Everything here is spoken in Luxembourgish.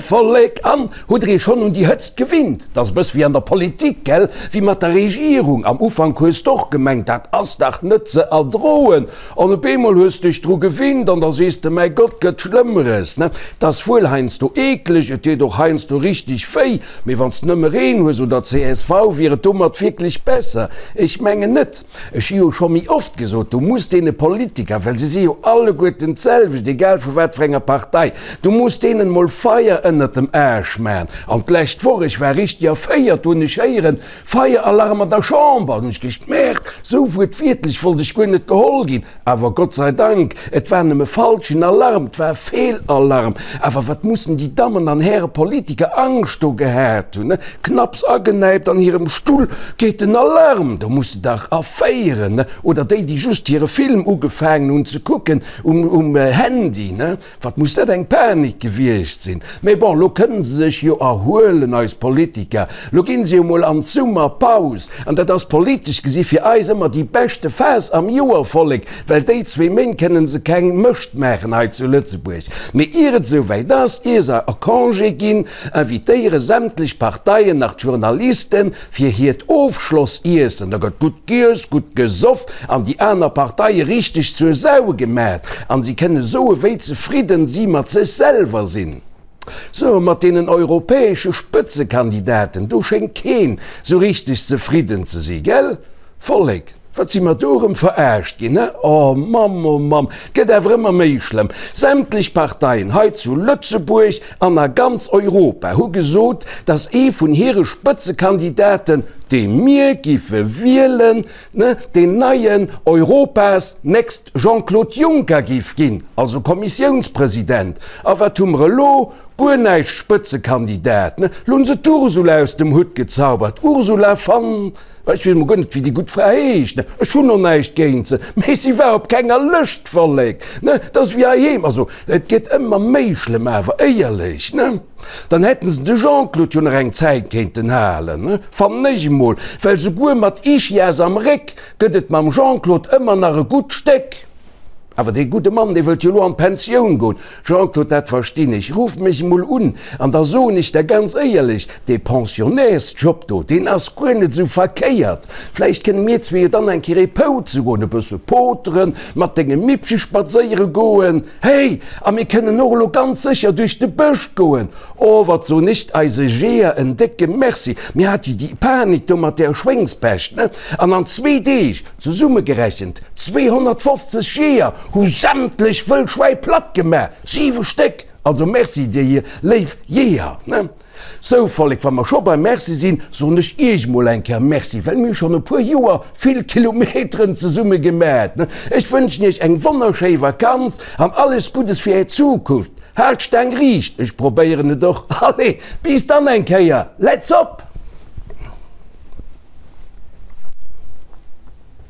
Vollek? An hutt der iech schonn un déi Hëtzt gewinnt? 't ass e bëss wéi an der Politik, gell, wéi mat der Regierung. Am Ufank hues d'och gemengt, dat ass dach net ze erdroen. An op eemol hues dech dru gewinnt an da sees de, mäi Gott, gëtt Schlëmmeres, ne? 't ass wuel heiansdo eekleg, et deet och heiansdo richteg wéi, mee wann s nëmme Reen hues oder csv, wier et domat wierklech besser? Ech mengen net. Ech hu jo scho méi oft gesot, du muss deene Politiker, well se si jo alleguerten d'selwecht, egal vu wat fir enger Partei, du muss deenen emol Feier ënnert dem Aarsch man. An d'lescht Woch, ech war richteg erféiert, do hunn ech héieren, Feieralarm an der Chamber! Hunn ech gecht, Merde, sou wuertwiertlech wollt ech guer net geholl ginn. Awer Gott sei Dank, et war nëmme falschen Alarm, et war Feelalarm. Awer wat mussen déi Dammen an Häre Politiker Angscht do gehat hunn, ne? Knapps agenäipt an hirem Stull geet den Alarm, do muss de dach erféieren, ne? Oder déi, déi just hire Film ugefaangen hunn ze kucken um Handy, ne? Wat muss dat eng Panik gewiescht sinn! Mee bon, lo kënnen se sech jo erhuelen, eis Politiker. Lo ginn se jo mol an d'Summerpaus. An dat ass politesch gesi fir eis ëmmer déi beschte Phas am Joer, Vollek, well déi zwee Méint kënnen se keng Mëscht maachen hei zu Lëtzebuerg. Mee ier et esouwäit ass, ier se a Congé ginn, invitéiere sämtlech Parteien nach d'Journalisten, fir hiert Ofschlossiessen, da gëtt gutt giess, gutt gesoff an déi aner Parteie richteg zur Sau gemat an si kënne soe wéi zefridden si mat sech selwer sinn. Sou, mat deenen europäesche Spëtzekandidaten, do schéngt keen sou richteg zefridden ze si, gell Vollek? Wat si mer do erëm verarscht ginn, he? Oh Mamm, oh Mamm, gëtt awer ëmmer méi schlëmm. Sämtlech Parteien hei zu Lëtzebuerg an a ganz Europa hu gesot, datt ee vun hire Spëtzekandidaten, dee mir giffe wielen, ne, deen neien Europas next Jean-Claude Juncker giff ginn, also Kommissiounspresident. A wat hu mer elo? Guer näischt Spëtzekandidat, ne? Lo hunn se d'Ursula aus dem Hutt gezaubert, Ursula van. Ech weess mol guer net, wéi déi gutt Fra heescht. Ech hunn och näischt géint se, mee si war op kenger Lëscht, Vollek, ne? Dat ass wéi heiheem. Also, et gëtt ëmmer méi schlëmm, awer éierlech, ne? Dann hätten se de Jean-Claude jo nach eng Zäit kéinten halen, ne? Fannen ech emol, well souguer mat Ischias am Réck gëtt et mam Jean-Claude ëmmer nach e gutt Stéck. Awer dee gudde Mann, dee wëllt jo elo an d'Pensioun goen. Jean-Claude, dat verstinn ech. Ruff mech emol un an da soen ech der ganz éierlech, dee Pensionnairsjob do, deen ass guer net esou verkéiert. Vläicht kënne mir zwee jo dann eng Kéier ee Pouze goen, e bësse poteren, mat dengem Mippche spadséiere goen. Hey, a mir kënnen och elo ganz sécher duerch de Bësch goen. Oh, wat soen ech eise Jeeër en décke Merci. Mir hate jo déi Panik do mat där Schwéngspescht, ne? An an zwee Deeg, Zesummegerechent 250 Jeeër hu sämtlech Wëllschwäi platt gemaach, 7 Stéck! Also Merci dir hier léif Jeeër. Sou Vollek, wa mer scho beim Merci sinn, soen ech iech mol eng Kéier Merci, well mir hu schonn e puer Joer vill Kilometeren zesumme gemat. Ech wënschen iech eng wonnerschéi Vakanz an alles Guddes fir är Zukunft. Haalt d'Staang riicht, ech probéieren et och. Allez, bis dann eng Kéier, let's op!